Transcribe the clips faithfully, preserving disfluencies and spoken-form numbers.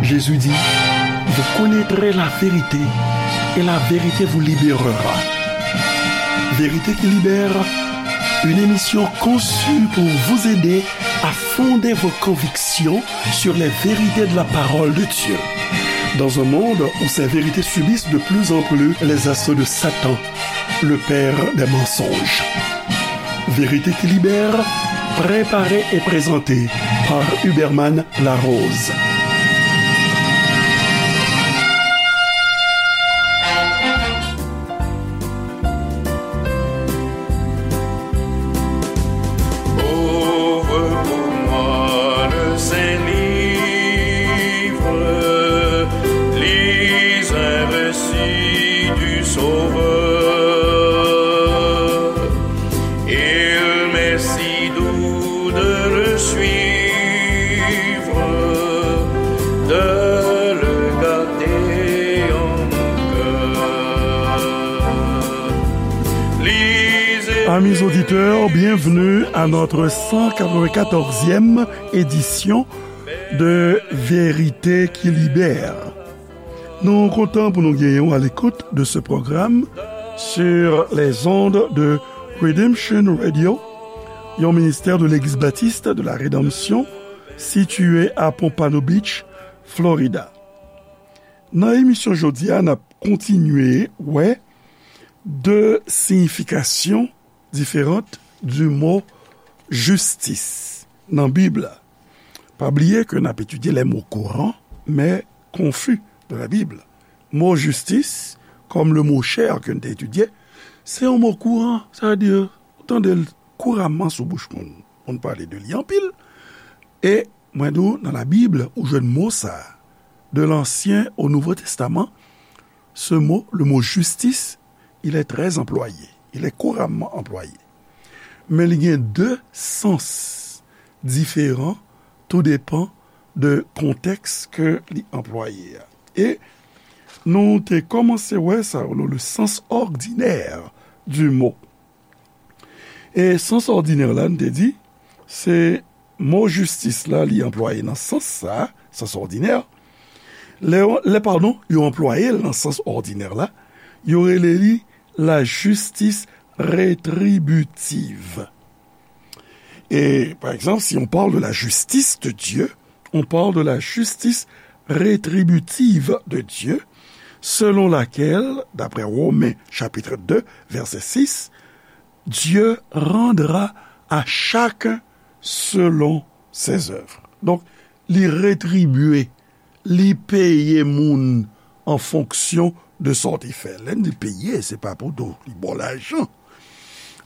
Jésus dit, vous connaîtrez la vérité et la vérité vous libérera. Vérité qui libère, une émission conçue pour vous aider à fonder vos convictions sur les vérités de la parole de Dieu. Dans un monde où ces vérités subissent de plus en plus les assauts de Satan, le père des mensonges. Vérité qui libère, préparée et présentée par Huberman Larose. Ouvre pour moi le Saint-Livre, lis un récit du Sauveur. Il m'est si doux de le suivre, de le garder en mon cœur. Lisez Amis auditeurs, bienvenue à notre cent quatre-vingt-quatorzième édition de Vérité qui libère. Nou kontan pou nou genyen w à l'écoute de ce programme sur les ondes de Redemption Radio, yon ministè de Legliz Batis de la Redanmsyon, sitiye a Pompano Beach, Florida. Nan emisyon jodi a, n ap kontinye wè de siyifikasyon différentes du mot justice nan Bib la. Pa bliye ke n ap etidye les mots courants, mais confus de la Bible. Mo jistis, kòm le mo chè ke n te etidye, se yon mo kouran, sa vle di, ou tande l kouramman sou bouch moun. Moun pale de li anpil. E mwen di w, nan Labib, ou jwenn mo sa a. De l'Ancien au Nouveau Testament, ce mot, le mot justice, il est très employé. Il est couramment employé. Men li gen de sans diferan, tou depan de kontèks ke li anplwaye a. E nou te kòmanse wè sa, le, le sens ordinaire du mot. E sans òdinè la, n te di, se mo jistis la, li anplwaye nan sans sa, sans òdinè. Lè, lè, padon, yo anplwaye l nan sans òdinè la, yo rele li la justice rétributive. Et, par exemple, si on parle de la justice de Dieu, on parle de la justice rétributive de Dieu, selon laquelle, d'après Romains chapitre deux, verset six, Dieu rendra à chacun selon ses œuvres. Donk, li retribye, li peye moun an fonksyon de sa w te fè. Lè n di peye, se pa pou di li ba w lajan,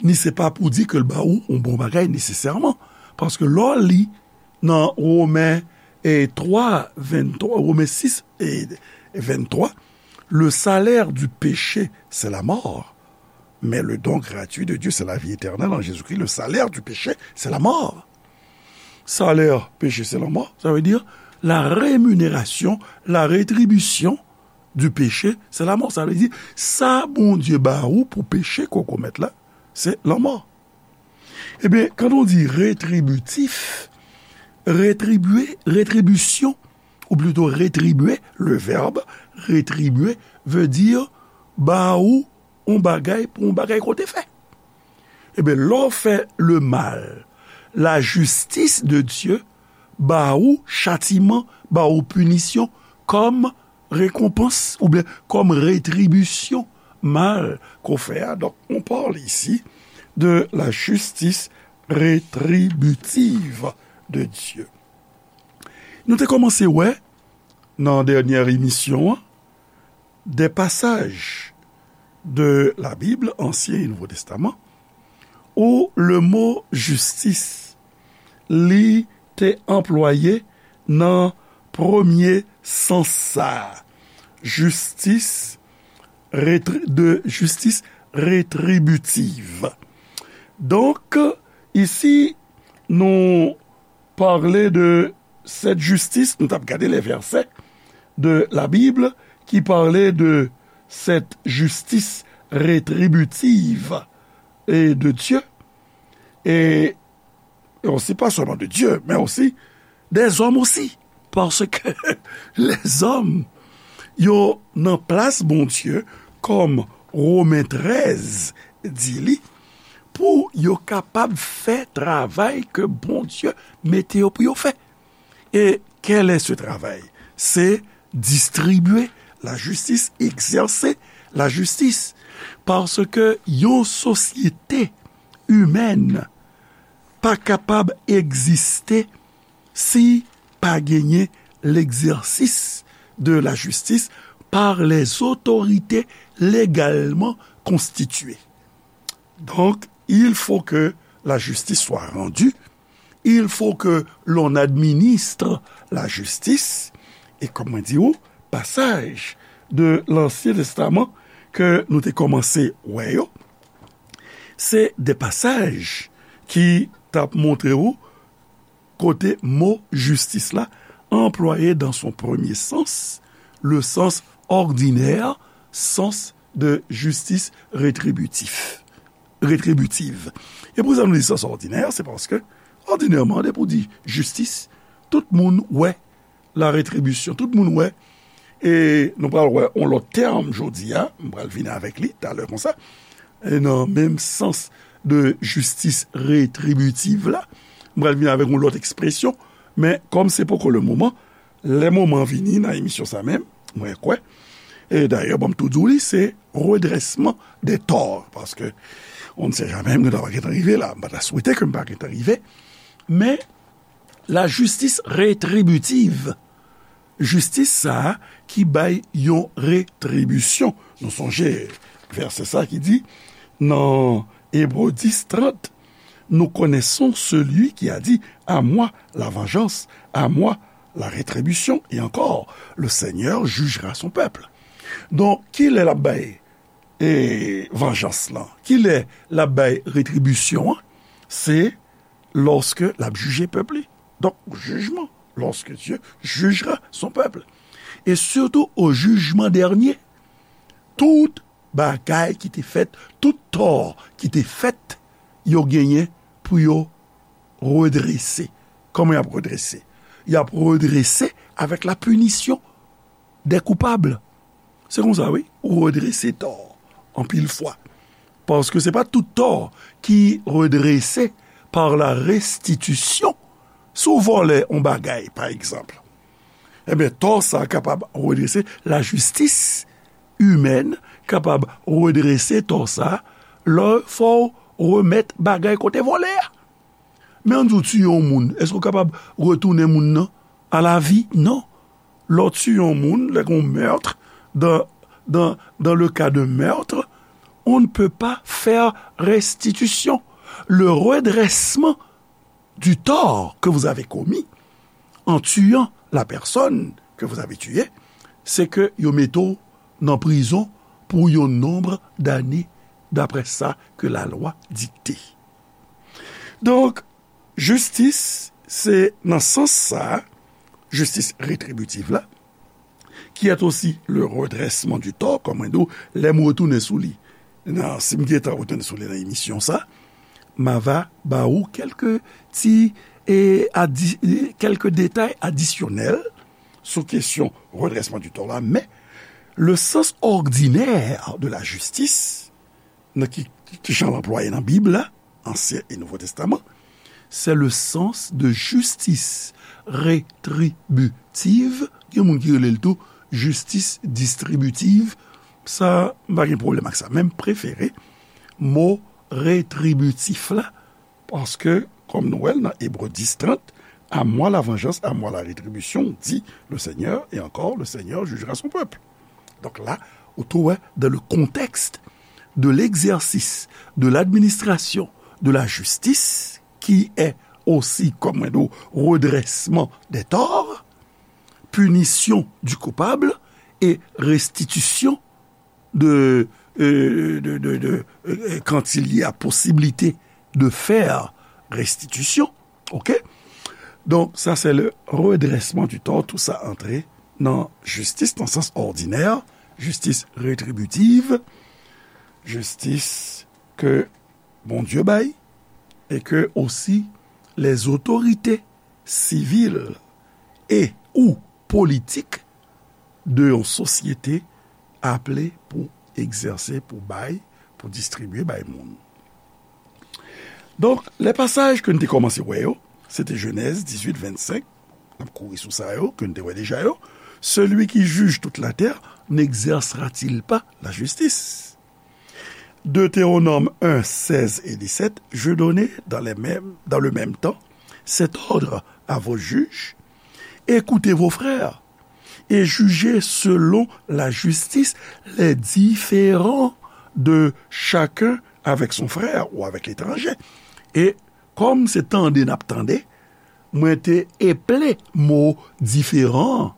ni se pa pou di ke l ba ou yon bon bagay nesesèman. Paske lè w li nan Women, e, twa, venntwa, Women sis e venntwa, le salaire du péché, c'est la mort. Mais le don gratuit de Dieu, c'est la vie éternelle en Jésus-Christ. Le salaire du péché, c'est la mort. Salè peche, se lanmò. Sa vle di, la rémunération, la rétribution du péché, c'est la mort. Sa vle di, sa Bondye ba ou pou peche ke w komèt la, se lanmò. Ebyen, quand on dit rétributif, rétribuer, rétribution, ou plutôt rétribuer, le verbe rétribuer veut dire ba ou yon bagay pou yon bagay ke w te fè. Ebyen, lè w fè le mal, la justice de Dieu ba ou chatiman, ba ou pinisyon kòm rekonpans oubyen kòm retribisyon mal ke w fè a. Donk, on parle ici de la justice rétributive de Dieu. Nou te kòmanse wè nan dènyè emisyon an, des passages de la Bible, Ancien et Nouveau Testament, où le mot justice, li te anplwaye nan premye sans sa a. Justice rétri-, de justice rétributive. Donk, isi, nou pale de cette justice, nou t ap gade les versets de la Bible qui parlaient de cette justice rétributive et de Dieu, et, et aussi pas seulement de Dieu, mais aussi des hommes aussi. Paske lèzòm, yo nan plas Bondye, kòm Women trèz di li, pou yo kapab fè travay ke Bondye mete yo pou yo fè. E kèl è se travay? Se distribye lajistis, egzèse lajistis. Paske yon sosyete imèn pa kapab egziste si pa genyen l'exercice de la justice par les autorités légalement constituées. Donc, il faut que la justice soit rendue, il faut que l'on administre la justice, e kòm mwen di ou, pasaj de Lansyen Testaman ke nou te kòmanse wè yo, se de pasaj ki t ap montre ou kote mo jistis la anplwaye dans son premier sens, le sens ordinaire, sens de justice rétributif, rétributive. E pou sa nou di sens ordinaire, se paske, òdinèman, depi w di jistis, tout moun wè la rétribution. Tout moun wè. E nou pral wè yon lòt tèm jodi a, m pral vin avèk li talè konsa. E nan menm sans de jistis rétributive la, m pral vin avèk yon lòt ekspresyon, men kòm se poko le moman, lè moman vini nan emisyon sa menm, mwen kwè, e dayè, bon, m tou di w li, se redrèsman dè tò, paske on ne sait jamais, nou ta pa gentan rive la, m pa ta swete ke m pa gentan rive, men lajistis rétributive, jistis sa a ki bay yon retribisyon. Nou sonje vèsè sa ki di nan Ebre dis trant, nous connaissons celui qui a dit, à moi la vengeance, à moi la rétribution, et encore, le Seigneur jugera son peuple. Donk, kilè l ap bay e, vanjans lan? Kilè l ap bay retribisyon an? Se lòske l ap jije pèp li. Donk, jijman, lorsque Dieu jugera son peuple. Et surtout au jugement dernier, tout bagay ki te fèt, tout tò ki te fèt, yo genyen pou yo redrese. Kòman y ap redrese? Y ap redrese avèk la punition des coupables. Se konsa, wi, ou redrese tò anpil fwa. Paske se pa tout tò ki redrese par la restitution. Si w vòlè yon bagay, pa egzanp, ebyen, tò sa a kapab redrese, lajistis imèn kapab redrese tò sa a, lè fò w remèt bagay ke w te vòlè a. Men ann di w tiye yon moun, èske w kapab retounen moun nan a la vi? Non. Lè w tiye yon moun, lè gen yon meurtre, dans, dans, dans le cas de meurtre, on ne peut pas faire restitution. Le redressement du tort que vous avez commis en tuant la personne que vous avez tuée, c'est que yo mete w nan prizon pou yon nonb dane, daprè sa ke lalwa dikte. Donk, jistis, se nan sans sa, jistis retribitiv la, qui est aussi le redressement du tort, kòm mwen di w, lè m retounen sou li, nan, si m gentan retounen sou li nan emisyon sa, m a va ba ou kèlke ti, e, adi-, e, kèlke detay adisyonèl sou kesyon redrèsman di tò la, men le sens ordinaire de la justice, nan ki, ki jan l anplwaye nan Bib la, Ansyen e Nouvo Testaman, c'est le sens de justice rétributive. Gen moun ki rele l tou jistis distribitiv. Sa, m pa gen pwoblèm ak sa. Men m prefere mo retribitif la, paske, kòm nou wè l nan Ebre dis trant, à moi la vengeance, à moi la rétribution, dit le Seigneur, et encore, le Seigneur jugera son peuple. Donk la, ou tou wè, dans le contexte de l'exercice de l'administration de la justice, qui est aussi, kòm mwen di w, redrèsman dè tò, punition du coupable et restitution de, euh, de, de, de, euh, quand il y a possibilité de faire restitution, ok? Donk, sa se le redrèsman di tò, tou sa antre nan jistis, nan sans òdinè, jistis retribitiv, jistis ke Bondye bay, e ke osi les autorités civiles e ou politik de yon sosyete aple pou egzèse, pou bay, pou distribye bay moun. Donk, lè pasaj ke n te kòmanse wè yo, se te Jenèz dizuit vennsenk, n ap kouri sou sa yo, ke n te wè deja yo. Celui qui juge toute la terre n'exercera-t-il pas la justice? Deutéronome un, seize et dix-sept, je donnais dans les mêmes, dans le même temps cet ordre à vos juges, écoutez vos frères et jugez selon la justice les différends de chacun avec son frère ou avec l'étranger. E kòm se tande n ap tande, mwen te eple mo diferan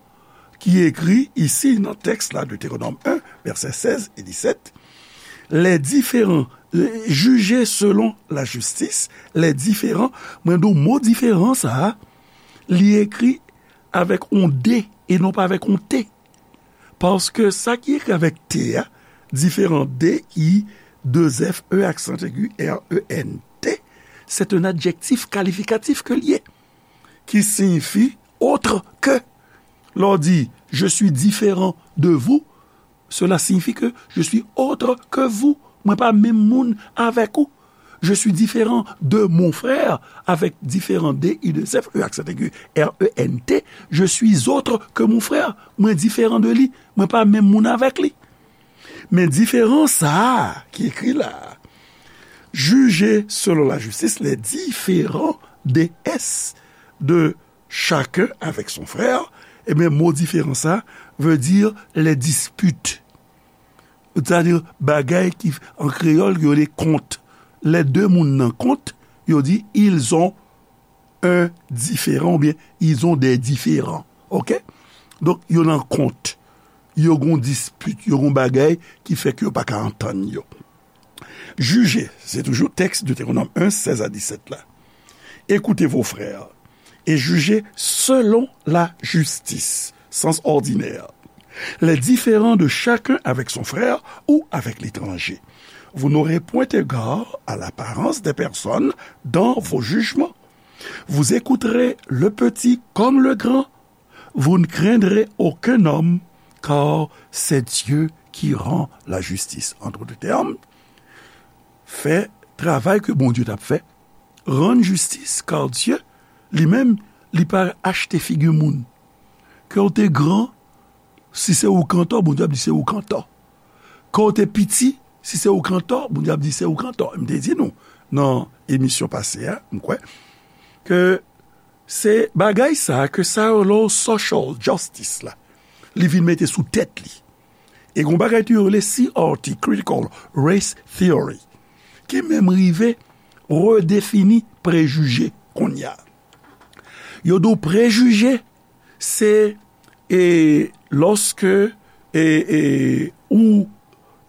ki ekri isi nan tèks la, Deutéronome un, vèsè sèz e disèt. Les différends, euh, jugez selon la justice, les différends, mwen di w mo diferan sa a, li ekri avèk yon D e non pa avèk yon T. Paske sa ki ekri avèk T a, diferan, D I, deux F, E aksan egi, R E N T, c'est un adjectif qualificatif ke l ye, ki siyifi autre que. Lè w di, je suis différent de vous, cela signifie que je suis autre que vous. Mwen pa menm moun avèk ou. Je suis différent de mon frère, avec différent D I deux F, E aksan egi, R E N T. Je suis autre que mon frère. Mwen diferan de li. Mwen pa menm moun avèk li. Men diferan sa a ki ekri la a, jugez selon la justice les différends de S, de chacun avec son frère, ebyen, mo diferan sa a veut dire les disputes. Sètadi, bagay ki, an kreyòl, yo rele kont. Lè de moun nan kont, yo di, ils ont un différend, oubyen, ils ont des différends. Oke? Donk, yo nan kont. Yo gon dispit, yo gon bagay ki fè ke yo pa ka antann yo. Jugez, se toujou tèks Deutéronome un, seize à dix-sept la. Écoutez vos frères et jugez selon la justice, sens ordinaire, les différends de chacun avec son frère ou avec l'étranger. Vous n'aurez point égard à l'apparence des personnes dans vos jugements. Vous écouterez le petit comme le grand. Vous ne craindrez aucun homme, car c'est Dieu qui rend la justice. En d'autres termes, fè travay ke Bondye t ap fè, rann jistis, kar Dye, li menm, li pa achte figi moun. Ke w te gran, si se ou k antò, Bondye ap di se ou k antò. Ke w te piti, si se ou k antò, Bondye ap di se ou k antò. M te di nou, nan emisyon pase a, m kwè, ke se bagay sa a ke sa yo rele social justice la, li vin mete sou tèt li. E gon bagay tou yo rele C R T, Critical Race Theory, ki menm rive redefini prejije kounye a. Yo di w prejije, se, e, lòske, e, e, ou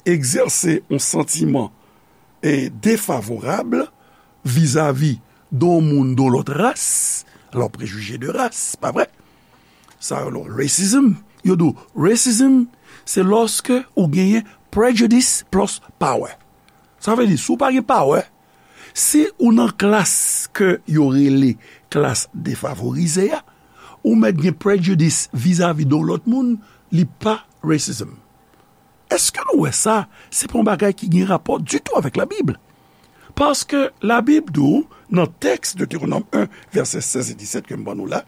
egzèse yon santiman, e, defavorab vizavi de yon moun de yon lòt ras, alò, prejije de ras, pa vre? Sa yo rele racism. Yo di w, racism, se lòske ou genyen prejudice plus power. Sa vle di, si w pa gen power, si ou nan klas ke yo rele klas defavorize a, ou mèt gen prejudice vizavi de yon lòt moun, li pa racism. Èske nou wè sa? Se pa yon bagay ki gen rapò ditou avèk Labib. Paske Labib di w, nan tèks Deutéronome un, vèsè sèz e disèt ke m ban nou la,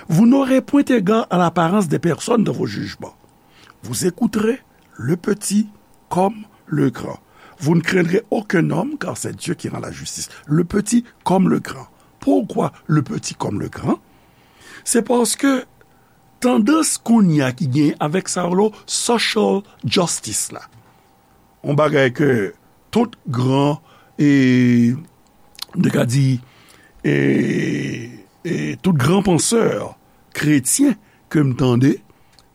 vous n'aurez point égard à l'apparence des personnes dans vos jugements. Vous écouterez le petit comme le grand. Vous ne craindrez aucun homme, car c'est Dieu qui rend la justice. Le petit comme le grand. Pourquoi le petit comme le grand? Se paske tandans kounye a ki gen avèk sa yo rele social justice la. Yon bagay ke tout gran, e, m te ka di, e, e, tout gran pansè kretyen ke m tande,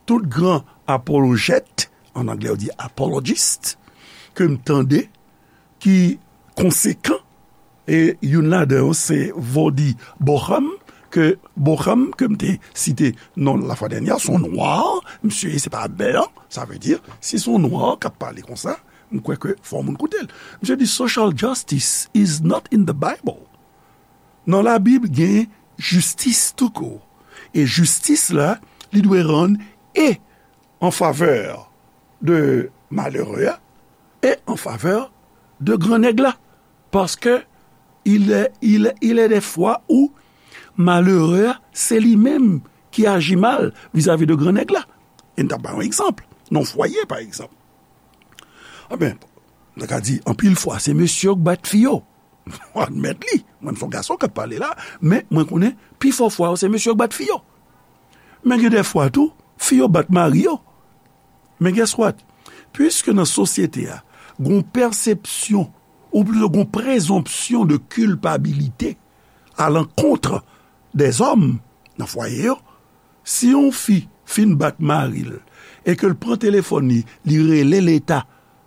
tout gran apolojèt, an anglè yo di apologist, ke m tande, ki konsekan, e youn ladan yo se Voddie Baucham, ke Baucham, ke m te site non lafwa dènyè, se yon nwa, misye se pa blan, sa vle di, si se yon nwa k ap pale konsa, m kwè ke fò moun koute l. Misye di, social justice is not in the Bible. Nan Labib, gen jistis toukout. E jistis la, li dwe rann e an favè de malere a e an favè de gran nèg la. Paske il est, il, il est des fois où malere a, se li menm ki aji mal vizavi de gran nèg la. E n t ap bay yon egzanp, nan fwaye, pa egzanp. Anben, nou ka di, anpil fwa, se mesye yo k bat fi yo. Mwen admèt li. Mwen, m se yon gason k ap pale la, men mwen konnen pifò fwa yo, se mesye yo k bat fi yo. Men gen de fwa tou, fi yo bat mari yo. Men guess what? Piske nan sosyete a, gon pèsepsyon, ou plito gon prezonpsyon de kilpabilite a lankont dèzòm nan fwaye yo, si yon fi fin bat mari l e ke l pran telefòn li, li rele Leta,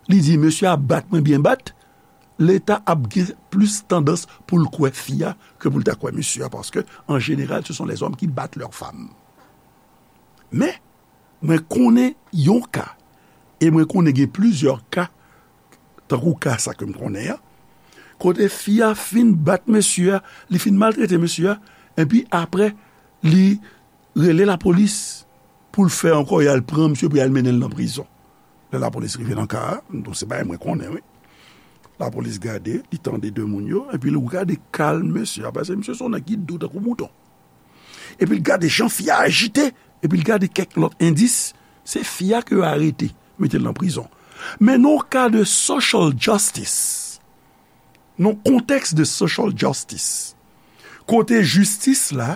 li di, "Mesye a bat mwen byen bat," Leta ap gen plis tandans pou l kwè fi a ke pou l ta kwè mesye a, paske, an jeneral, ce sont les hommes qui battent leurs femmes. Men, mwen konnen yon ka, e mwen konnen gen plizyè ka, tankou ka sa ke m konnen an, kote fi a fin bat mesye a, li fin maltrete mesye a, epi apre, li rele lapolis pou l fè ankò, y al pran misye, pou y al mennen l nan prizon. Lè lapolis rive nan ka a, m di w se bagay mwen konnen, wi. Lapolis gade, li tande de moun yo, epi l gade kalm mesye a, paske misye se yon nèg ki dou tankou mouton. Epi l gade jan fi a ajite, epi l gade kèk lòt endis, se fi a ke yo arete, mete l nan prizon. Men nan yon ka de social justice, nan kontèks de social justice, kote jistis la,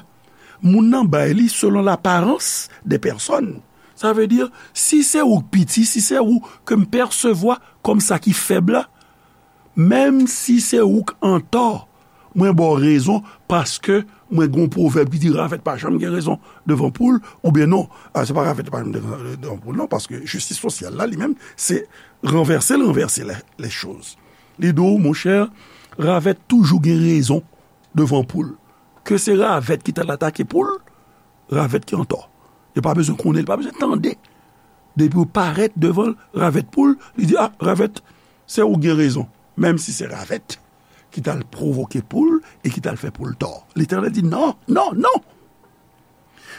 moun nan bay li selon laparans de pèsòn. Sa vle di, si se ou k piti, si se ou ke m pèsevwa kòm sa ki fèb la, menm si se ou k antò, mwen ba w rezon, paske mwen gen yon pwovèb ki di, "Ravèt pa janm gen rezon devan poul," oubyen non, a, se pa ravèt pa janm gen rezon devan poul, non, paske jistis sosyal la, li menm, se ranvèse l ranvèse les, les choses. Li di w, monchè, ravèt toujou gen rezon devan poul. Ke se ravèt ki t al atake poul, ravèt ki antò. Yo pa bezwen konnen, li pa bezwen tande. Depi w parèt devan l, ravèt poul, li di, "A, ravèt, se ou k gen rezon." Menm si se ravèt ki t al pwovoke poul e ki t al fè poul tò. Letènèl di, "Non, non, non!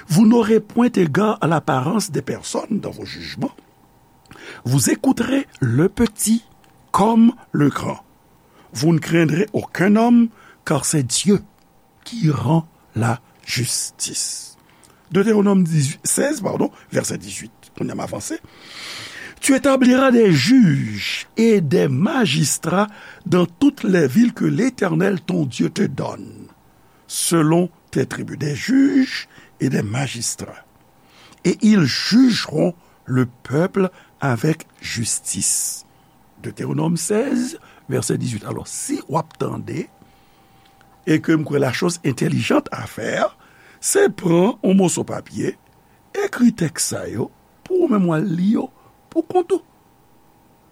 Vous n'aurez point égard à l'apparence des personnes dans vos jugements. Vous écouterez le petit comme le grand. Vous ne craindrez aucun homme, car c'est Dieu qui rend la justice." Deutéronome dix-huit, seize, pardon, verset dix-huit. Kounye a m avanse. Tu établiras des juges et des magistrats dans toutes les villes que l'Éternel ton Dieu te donne, selon tes tribus, des juges et des magistrats. Et ils jugeront le peuple avec justice. Deutéronome seize, verset dix-huit. Alò, si w ap tande, e ke m kwè la chose intelligente à faire, se pran yon moso papye, ekri tèks sa yo, pou ou menm w al li yo pou kont ou.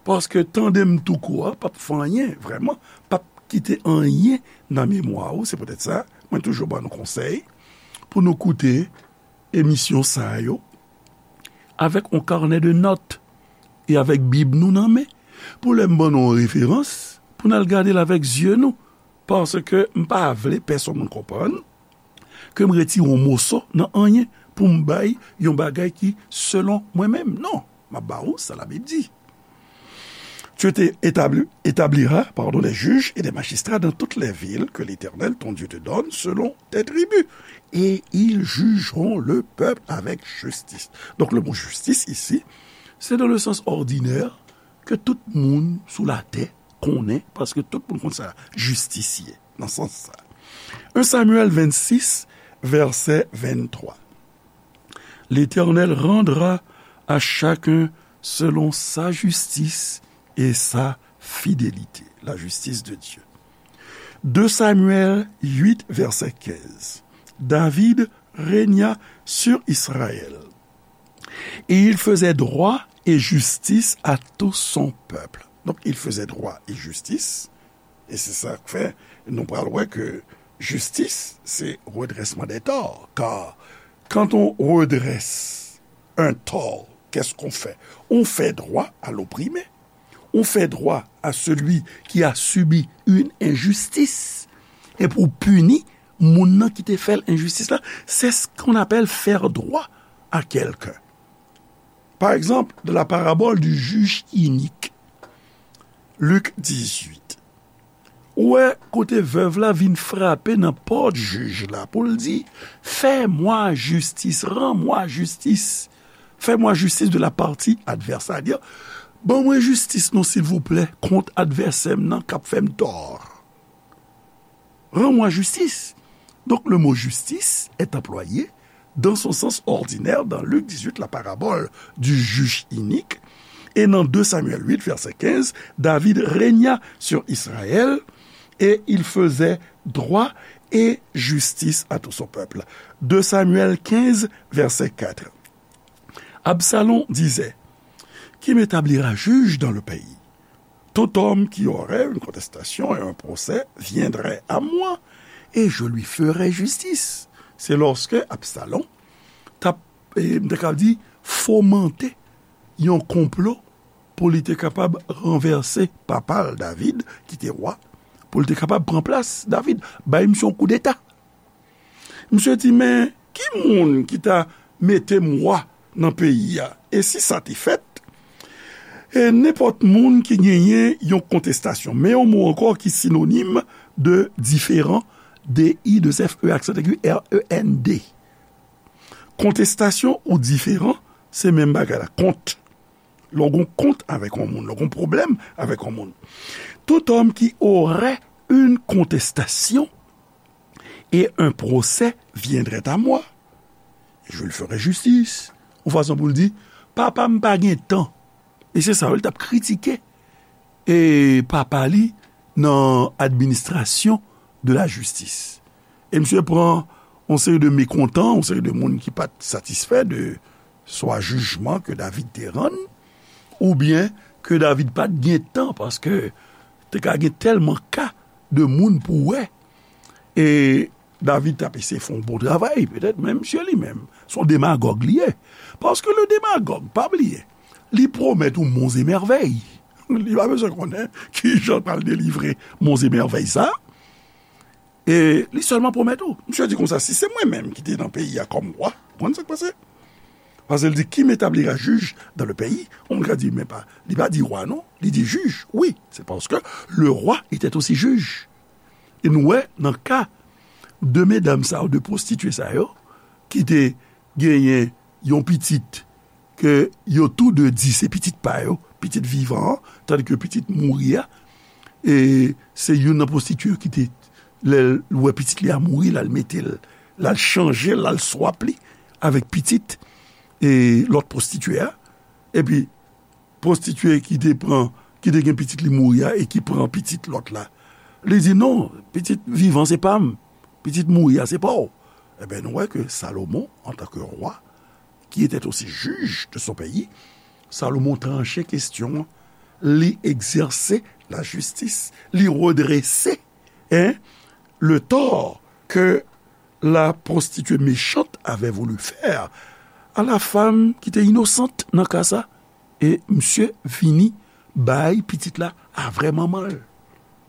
Paske tande m tou kou a, p ap fè anyen, vrèman, p ap kite anyen nan memwa ou. Se poutèt sa, mwen toujou ban nou konsèy pou nou koute emisyon sa yo avèk yon kanè de nòt e avèk Bib nou nan men, pou lè m ban nou yon referans, pou n al gade l avèk zye nou, paske m pa vle pèsonn moun konprann ke m retire yon moso nan anyen pou m bay yon bagay ki selon mwen menm. Non, m ap ba ou sa Labib di. Tu te établi-, établiras, pardon, des juges et des magistrats dans toutes les villes que l'Éternel, ton Dieu, te donne selon tes tribus, et ils jugeront le peuple avec justice. Donk, le mo jistis isi, se dans le sens ordinaire ke tout moun sou latè konnen, paske tout moun konn sa jistis ye, nan sans sa. Un Samuel vingt-six, verset vingt-trois. L'Éternel rendra à chacun selon sa justice et sa fidélité. La justice de Dieu. Deux Samuel huit, verset quinze. David régna sur Israël. Et il faisait droit et justice à tout son peuple. Donc, il faisait droit et justice. E se sa k fè nou pral wè ke jistis se redrèsman dè tò. Kar quand on redresse un tort, qu'est-ce qu'on fait? On fait droit à l'opprimé. On fait droit à celui qui a subi une injustice. E pou pini moun nan ki te fè l enjistis la, c'est ce qu'on appelle faire droit à quelqu'un. Par exemple, dans la parabole du juge inique, Lik dizuit. Ou wè kote vèv la vin frape nan pòt jij la pou l di, fais-moi justice, rends-moi justice. Fais-moi justice de la partie adverse. Sa di, ban mwen jistis non, silvouplè, kont advèsè m nan k ap fè m tò. Rends-moi justice. Donc, le mot justice est employé dans son sens ordinaire dans Luc dix-huit, la parabole du juge inique, et dans deux Samuel huit, verset quinze, David régna sur Israël et il faisait droit et justice à tout son peuple. Deux Samuel quinze, verset quatre. Absalom disait, qui m'établira juge dans le pays? Tout homme qui aurait une contestation et un procès viendrait à moi, et je lui ferai justice. Se lòske Absalom t ap, eh, m te ka di, fomante yon konplo pou li te kapab ranvèse papa l David, ki te wa, pou li te kapab pran plas David, bay misye yon koudeta. Misye di, men ki moun ki ta mete m wa nan peyi a? E si sa te fèt, e nenpòt moun ki genyen yon kontestasyon, men yon mo ankò ki sinonim de diferan, D I, de F E, aksan aigu, R E N D. Kontestasyon ou diferan, se menm bagay la, kont. Lè w gen kont avèk yon moun, lè w gen pwoblèm avèk yon moun. Tout homme qui aurait une contestation et un procès viendrait à moi, et je lui ferai justice. Yon fason pou l di, papa m pa gen tan. E se sa, wi, l t ap kritike e papa li nan administration de la justice. E misye pran yon seri de mekontan, yon seri de moun ki pa t satisfè de swa jijman ke David te rann, oubyen ke David pa t gen tan, paske te ka gen tèlman ka de moun pou wè. E David t ap eseye fè yon bon travay, petèt, men misye li menm, se yon demagòg li ye. Paske le demagòg, pa bliye, li pwomèt ou monzemèvèy. Li pa bezwen konnen kijan l pral delivre monzemèvèy sa. E li sèlman pwomèt ou. Misye di konsa, si se mwen menm ki te nan peyi a kòm wa, ou konn sa k pase? Paske l di, qui m'établira juge dans le pays? Yon moun ka di, men pa, li pa di wa non, li di jij. Wi, se paske le roi était aussi juge. E nou wè, nan ka de medam sa yo, de pwostitye sa yo, ki te genyen yon pitit, ke yo tou de di se pitit pa yo, pitit vivan an, tandike pitit mouri a, e se youn nan pwostitye yo ki te, lè l wè pitit li a mouri, l al mete l, l al chanje, l al swap li avèk pitit e lòt pwostitye a. Epi, pwostitye ki te pran, ki te gen pitit li mouri a e ki pran pitit lòt la. Li di, non, pitit vivan se pa m, pitit mouri a se pa w. Ebyen, nou wè ke Salomon, antanke wa, qui était aussi juge de son pays, Salomon tranche kestyon an, li egzèse lajistis, li redrese, hein, le tort que la prostituée méchante avait voulu faire à la femme qui était innocente nan ka sa. E misye vini bay pitit la a vrè manman l.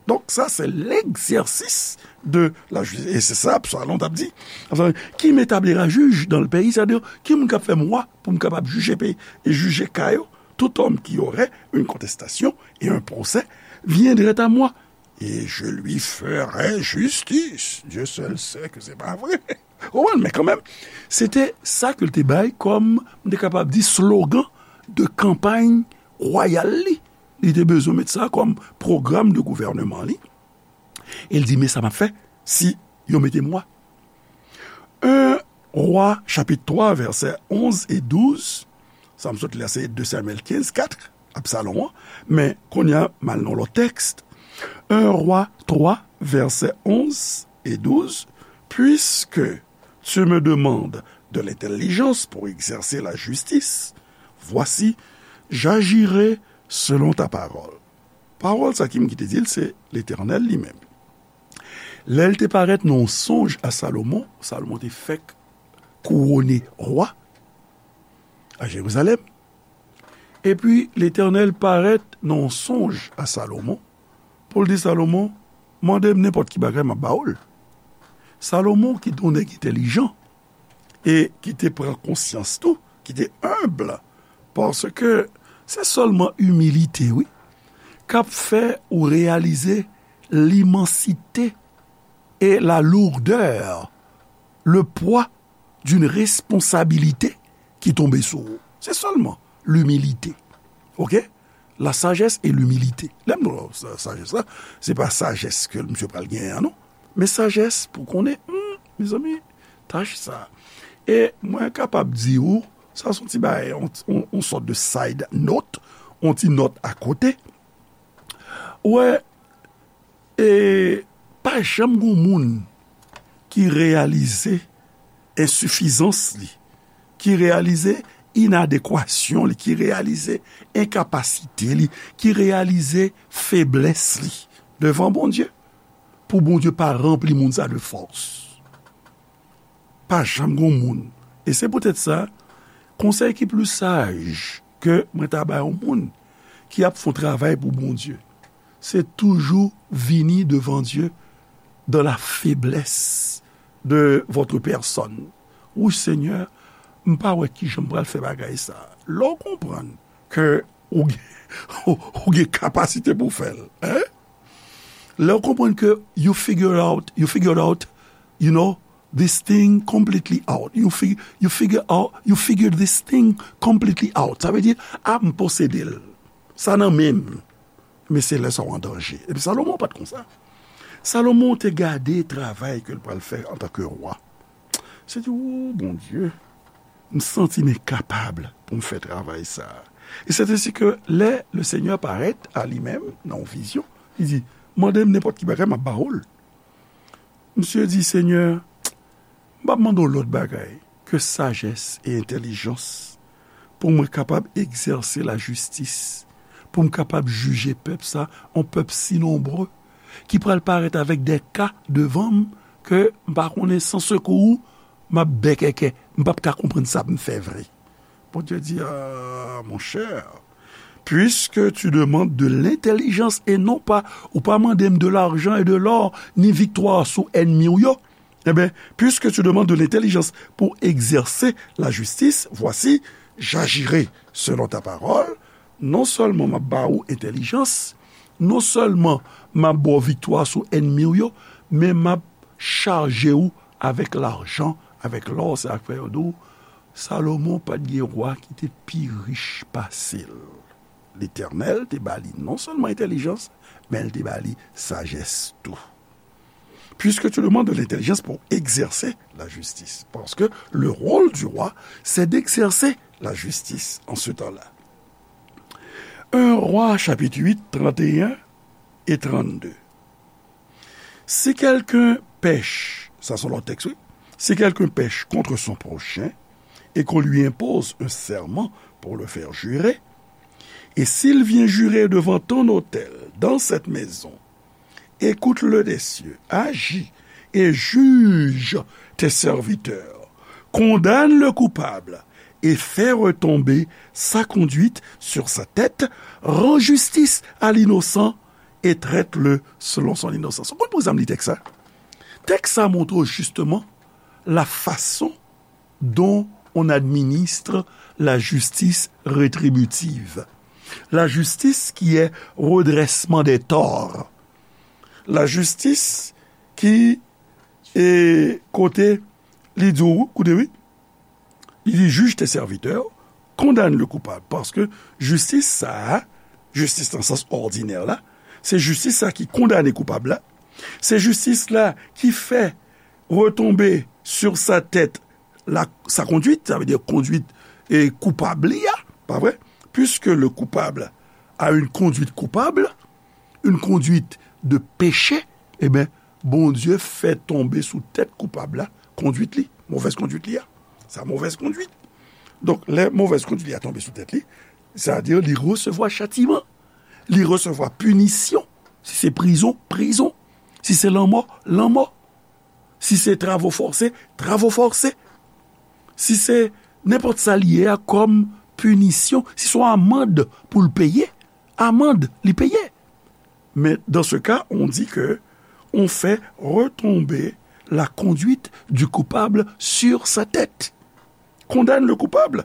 Donk, sa se l'exercice de la justice. E se sa Absalom t ap di. Enfin, qui m'établira juge dans le pays? Sa di, ki moun k ap fè m wa pou m kapab jije peyi e jije ka yo? Tout homme qui aurait une contestation et un procès viendrait à moi, et je lui ferai justice. Dieu seul sait que c'est pas vrai. Ou konprann, men kanmenm, se te sa ke l te bay kòm, m te kapab di, slogan de kanpay wayal li. Li te bezwen met sa kòm pwogram de gouvènman li. E l di, men sa m ap fè si yo mete m wa. En Wa, chapit twa, vèsè onz e douz. Sa m sot li a, se de Samyèl kenz, kat, Absalom an. Men, kounye a, m al nan lòt tèks. En Wa twa, vèsè onz e douz. Puisque tu me demandes de l'intelligence pour exercer la justice, voici, j'agirai selon ta parole. Pawòl sa ki m ki te di l, se Letènèl li menm. Lè l te parèt nan yon sonj a Salomon, Salomon te fèk kouwone wa a Jerizalèm. Epi, Letènèl parèt nan yon sonj a Salomon pou l di Salomon, mande m nenpòt ki bagay, m ap ba ou l. Salomon ki te yon nèg entèlijan e ki te pran konsyans tou, ki te enb, paske se sèlman imilite, wi, k ap fè ou reyalize limansite e la lourdè, le pwa d'une responsabilité ki tonbe sou ou. Se sèlman limilite. Oke? La sagesse et l'humilité. Lè m di w sa, sajès la, se pa sajès ke misye pral genyen an, non. Men sajès pou konnen, hmm, mezanmi, tach sa. E mwen kapab di w, sa se yon ti bagay, yon, yon, yon sòt de side note, yon ti nòt akote. Ou wè, e pa janm gen moun ki reyalize ensifizans li, ki reyalize inadekwasyon li, ki reyalize enkapasite li, ki reyalize feblès li devan Bondye, pou Bondye pa ranpli moun sa de fòs. Pa janm gen moun. E se poutèt sa, konsèy ki pli saj ke mwen ta bay yon moun ki ap fè yon travay pou Bondye, se toujou vini devan Dye dans la faiblesse de votre personne. Wi, Senyè, m pa wè kijan m pral fè bagay sa. Lè w konprann ke ou gen, ou gen kapasite pou w fè l, hein? Lè w konprann ke you figure out, you figured out, you know, this thing completely out. You fig-, you figure out, you figured this thing completely out. Sa vle di, a, m posede l. Sa nan men m. Men se lè sa w an danje. Epi Salomon pa t konsa. Salomon te gade travay ke l pral fè antanke wa. Se di, o Bondye, m santi m enkapab pou m fè travay sa. E c'est ainsi que lè le Seigneur parèt a li menm nan yon vizyon, li di, mande m nenpòt ki bagay, m ap ba ou l. Misye di, Senyè, m p ap mande w lòt bagay ke sajès e entèlijans pou mwen kapab egzèse lajistis, pou m kapab jije pèp sa, yon pèp si nonbre, ki pral parèt avèk de ka devan m ke m pa konnen, san sekou ou, m ap bèkèkè, m p ap ka konprann sa pou m fè vre. Bondye di, a, mon cher, puisque tu demandes de l'intelligence et non pas, ou pa mande m de l'argent et de l'or, ni viktwa sou ènmi w yo, eh bien, puisque tu demandes de l'intelligence pour exercer la justice, voici, j'agirai selon ta parole. Non sèlman m ap ba ou entèlijans, non sèlman m ap ba w viktwa sou ènmi w yo, men m ap chaje w avèk lajan, avèk lò, se sa k fè yo di w, Salomon pa t gen wa ki te pi rich pase l. Letènèl te ba li non sèlman entèlijans, men l te ba li sajès tou. Puisque tu demandes de l'intelligence pour exercer la justice. Parce que le rôle du roi, c'est d'exercer la justice en ce temps-là. Un Roi, chapitre huit, trente et un et trente-deux. Si quelqu'un pèche, ça c'est l'autre texte, oui. Si quelqu'un pèche contre son prochain et qu'on lui impose un serment pour le faire jurer, et s'il vient jurer devant ton autel, dans cette maison, écoute-le des cieux, agis et juge tes serviteurs, condamne le coupable et fais retomber sa conduite sur sa tête, rends justice à l'innocent et traite-le selon son innocence. Ou konn poukisa m li tèks sa? Tèks sa montre w justement la façon dont on administre la justice rétributive. La justice qui est redressement des torts. La justice qui est kote li di w, koute wi, li di, juge tes serviteurs, condamne le coupable. Paske jistis sa a, jistis nan sans òdinè la, se jistis sa ki kondane koupab la, se jistis la ki fè retombe sur sa tête la, sa conduite, sa vle di kondwit e koupab li a, pa vre? Puisque le coupable a une conduite coupable, une conduite de péché, eh bien, Bondye fè tonbe sou tèt koupab la, kondwit li, movèz kondwit li a. Sa movèz kondwit. Donk, lè movèz kondwit li a tonbe sou tèt li, sa vle di li resevwa chatiman, li resevwa pinisyon. Si se prizon, prizon. Si se lanmò, lanmò. Si se travo fòse, travo fòse. Si se nenpòt sa li ye a kòm pinisyon, si se yon amand pou l peye, amand li peye. Men dans ce cas, on dit que on fait retomber la conduite du coupable sur sa tête. Condamne le coupable,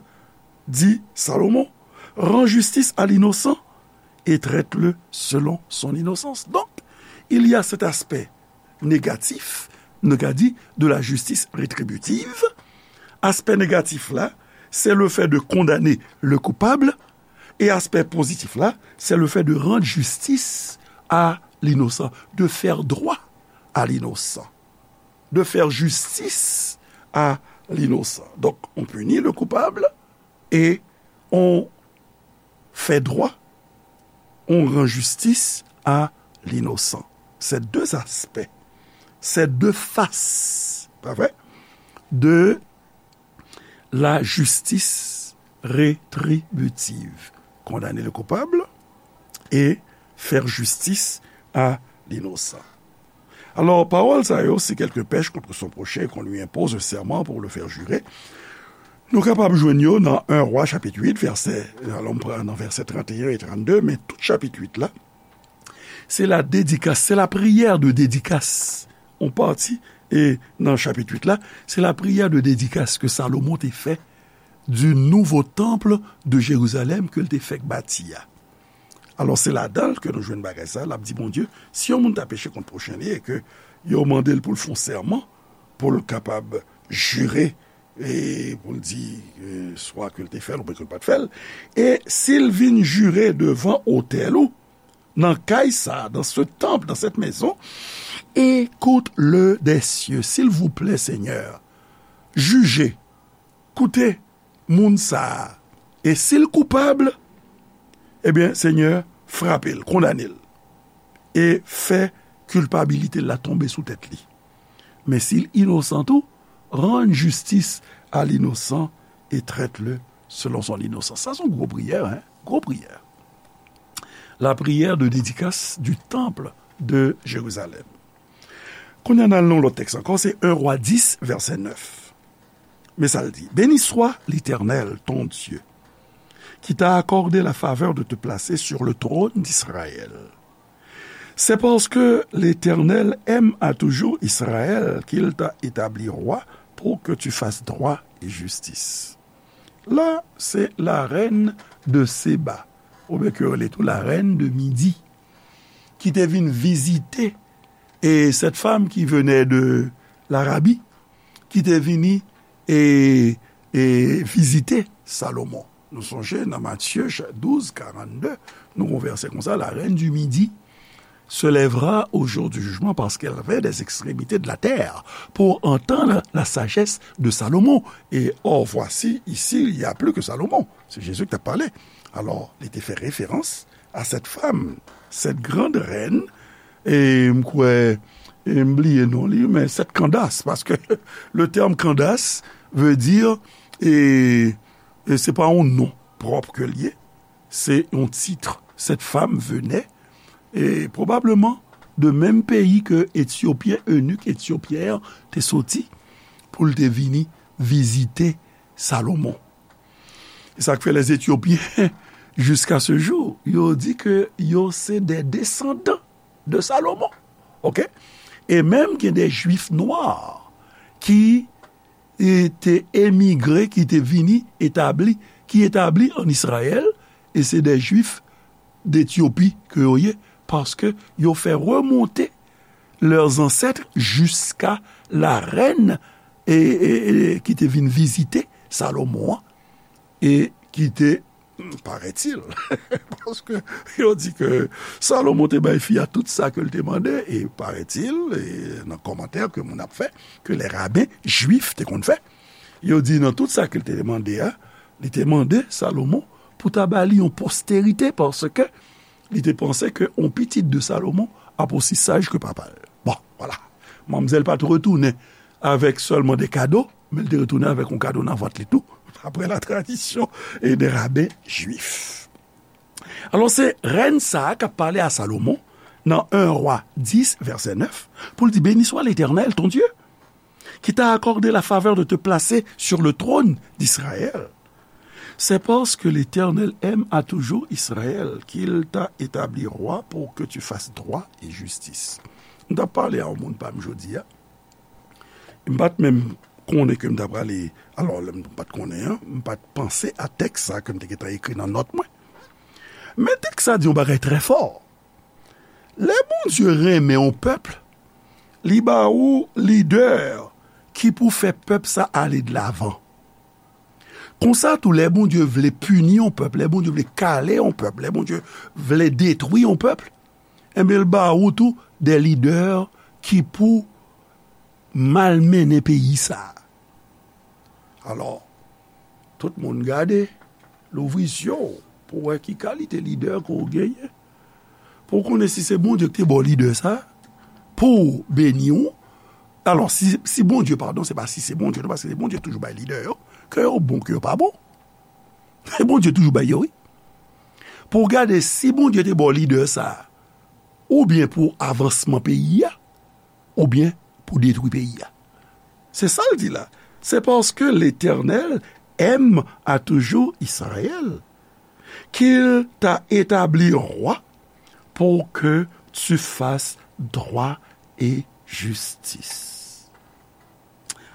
dit Salomon, rends justice à l'innocent et traite-le selon son innocence. Donc, il y a cet aspect négatif, nou ka di, de la justice rétributive. Aspè négatif la, c'est le fait de condamner le coupable. Et aspect positif là, c'est le fait de rendre justice à l'innocent, de faire droit à l'innocent, de faire justice à l'innocent. Donc, on punit le coupable et on fait droit, on rend justice à l'innocent. C'est deux aspects, c'est deux faces, pas vrai, de la justice rétributive. Condamner le coupable et faire justice à l'innocent. Alò, pawòl sa yo, c'est quelque pêche contre son prochain, qu'on lui impose un serment pour le faire jurer. Nou kapab jwenn yo nan en Roi chapit uit, vèsè, alò m pran nan vèsè trannteyen e trannde, men tout chapit uit la, se la dédicace, c'est la prière de dédicace. On pati, e nan chapit uit la, se la prière de dédicace que Salomon te fè du nouveau temple de Jérusalem ke l te fèk bati a. Alò, se ladan l ke nou jwenn bagay sa, l ap di Bondye, si yon moun ta peche kont pwochen li e ke yo mande l pou l fè yon sèman, pou l kapab jire, e pou l di, e, swa ke l te fè l oubyen ke l pa t fè l, e si l vin jire devan otèl ou, nan kay sa, dans ce temple, dans cette maison, écoute-le des cieux, s'il vous plaît, Seigneur, jije, koute moun sa a, e si l koupab, ebyen, Senyè, frape l, kondane l, e fè kilpabilite l la tonbe sou tèt li. Men si l inosan tou, rend justice à l'innocent et traite-le selon son innocence. Sa se yon gwo priyè, hein? Gwo priyè. La prière de dédicace du temple de Jérusalem. Kounye a n al nan yon lòt tèks ankò, se en Roi dis, vèsè nèf. Men sa l di, Béni soit l'Éternel, ton Dieu, qui t'a accordé la faveur de te placer sur le trône d'Israël. C'est parce que l'Éternel aime à toujours Israël qu'il t'a établi roi pour que tu fasses droit et justice. La, se la reine de Séba, oubyen ke yo rele tou la reine de Midi, ki te vin vizite, e cette femme qui venait de l'Arabie, ki te vini e, e vizite Salomon. Nou sonje nan Matye cha-, douz karannde, nou gon vèsè konsa, la reine du Midi se lèvera au jour du jugement parce qu'elle vint des extrémités de la terre pour entendre la sagesse de Salomon. Et or, voici, ici, il n'y a plus que Salomon. C'est Jésus qui t'a parlé. Alors, il était fait référence à cette femme, cette grande reine, e m kwè, e m bliye non li, men cette Candace, parce que le terme Candace veut dire, e, e se pa yon non pwòp ke l ye, se yon tit. Cette femme venait, e probableman, de menm peyi ke Etyopyen, enik etyopyen an te soti, pou l te vini vizite Salomon. E sa k fè les Éthiopiens, jusqu'à ce jour, yo di ke yo se des descendants de Salomon. Oke? E menm gen de Jwif nwa ki, e, te emigre, ki te vini etabli, ki etabli an Izrayèl, e se de Jwif d'Etyopi ke yo ye, paske yo fè remonte leurs ancêtres jusqu'à la reine, e, e, e, ki te vin vizite Salomon an, e ki te, paraît-il, paske yo di ke Salomon te bay fi a tout sa ke l te mande, e paraît-il, e nan kòmantè ke moun ap fè, ke les rabbins juifs te konn fè, yo di nan tout sa ke l te mande a, li te mande Salomon pou ta ba li yon posterite, paske li te panse ke yon pitit de Salomon ap osi saj ke papa l. Bon, vwala. Manmzèl pa t retounen avèk sèlman de kado, men l te retounen avèk yon kado nan vant li tou, d'après la tradition et des rabbins juifs. Alò, se rèn sa a k ap pale a Salomon nan en Roi dis, vèsè nèf, pou l di, Béni soit l'Éternel, ton Dieu, qui t'a accordé la faveur de te placer sur le trône d'Israël. C'est parce que l'Éternel aime à toujours Israël qu'il t'a établi roi pour que tu fasses droit et justice. M t ap pale a yon moun pa m jodi a, M pa t menm konnen ke m ta prale, alò, lè m pa t konnen an, m pa t panse a tèks sa ke m te gentan ekri nan nòt mwen. Men tèks sa di yon bagay trè fò. Lè Bondye renmen yon pèp, li ba ou lidè ki pou fè pèp sa ale de lavan. Konsa tou, lè Bondye vle pini yon pèp, lè Bondye vle kale yon pèp, lè Bondye vle detwi yon pèp, enben, l ba ou tou de lidè ki pou malmennen peyi sa a. Alò, tout moun gade, louvri zye w pou w wè ki kalite lidè ke w genyen, pou w konnen si se Bondye ki te ba w lidè sa a, pou w beni w. Alò, si, si Bondye, padon, se pa si se Bondye, non, paske se Bondye toujou bay lidè yo, ke yo bon, ke yo pa bon. Se Bondye toujou bay yo, wi. Pou w gade si Bondye te ba w lidè sa a, oubyen pou avansman peyi a, oubyen pou detwi peyi a. Se sa l di la. C'est parce que l'Éternel aime à toujours Israël, qu'il t'a établi roi pour que tu fasses droit et justice.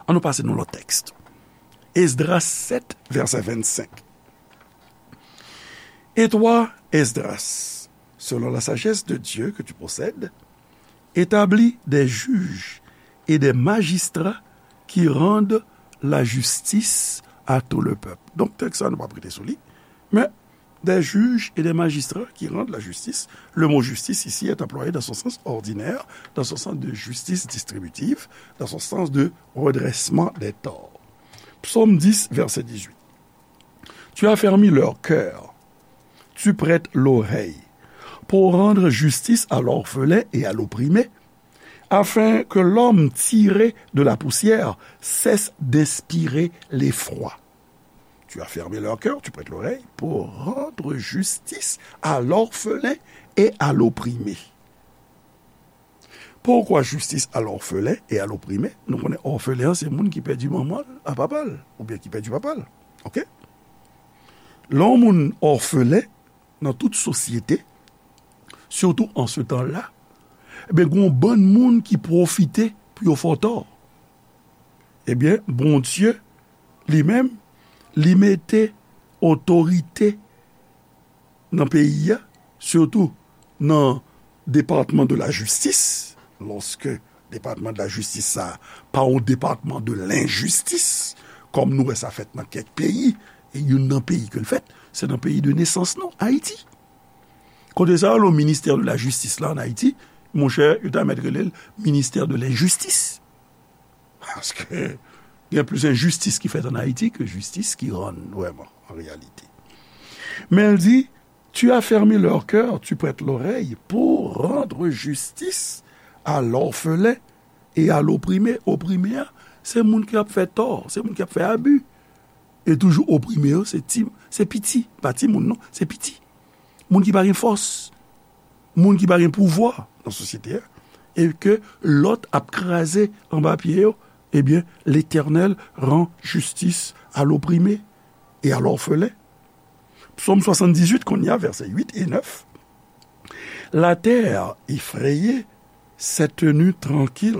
An nou pase nan lòt tèks. Esdras sèt, vèsè vennsenk. Et toi, Esdras, selon la sagesse de Dieu que tu possèdes, établis des juges et des magistrats qui rendent la justice à tout le peuple. Donk, tèks sa, nou p ap rete sou li, men des juges et des magistrats qui rendent la justice. Le mot justice ici est employé dans son sens ordinaire, dans son sens de justice distributive, dans son sens de redressement des torts. Psaume dix, verset dix-huit. Tu affermis leur cœur, tu prêtes l'oreille pour rendre justice à l'orphelin et à l'opprimé, afin que l'homme tiré de la poussière cesse d'inspirer l'effroi. Tu affermis leur cœur, tu prêtes l'oreille pour rendre justice à l'orphelin et à l'opprimé. Pourquoi justice à l'orphelin et à l'opprimé? Nou konnen òfelen an se moun ki pèdi manman l a papa l, oubyen ki pèdi papa l. Oke? Lè yon moun òfelen nan tout sosyete, sitou an se tan la, ebyen, gen yon bann moun ki pwofite pou yo fè w tò. Ebyen, Bondye, li menm, li mete otorite nan peyi a, sitou nan depatman de la jistis, lòske depatman de la jistis sa a pa yon depatman de lenjistis, kòm nou wè sa fèt nan kèk peyi, e youn nan peyi ke l fèt, se nan peyi de nesans nou, Ayiti. Kote sa yo, le ministè de la jistis la an Ayiti, monchè, yo ta mèt rele l ministè de lenjistis. Paske gen plis enjistis ki fèt an Ayiti ke jistis ki rann vrèman, an reyalite. Men l di, tu affermis leur cœur, tu prêtes l'oreille pour rendre justice à l'orphelin et à l'opprimé. Oprime a, se moun ki ap fè tò, se moun ki ap fè abi. E toujou oprime yo, se ti, se piti, pa timoun non, se piti. Moun ki pa gen fòs, moun ki pa gen pouvwa nan sosyete a, e ke lòt ap kraze anba pye yo, ebyen, Letènèl ran jistis a loprime e a lòfelen. Psaume soixante-dix-huit, kounye a, vèsè uit e nèf. La terre effrayée s'est tenue tranquille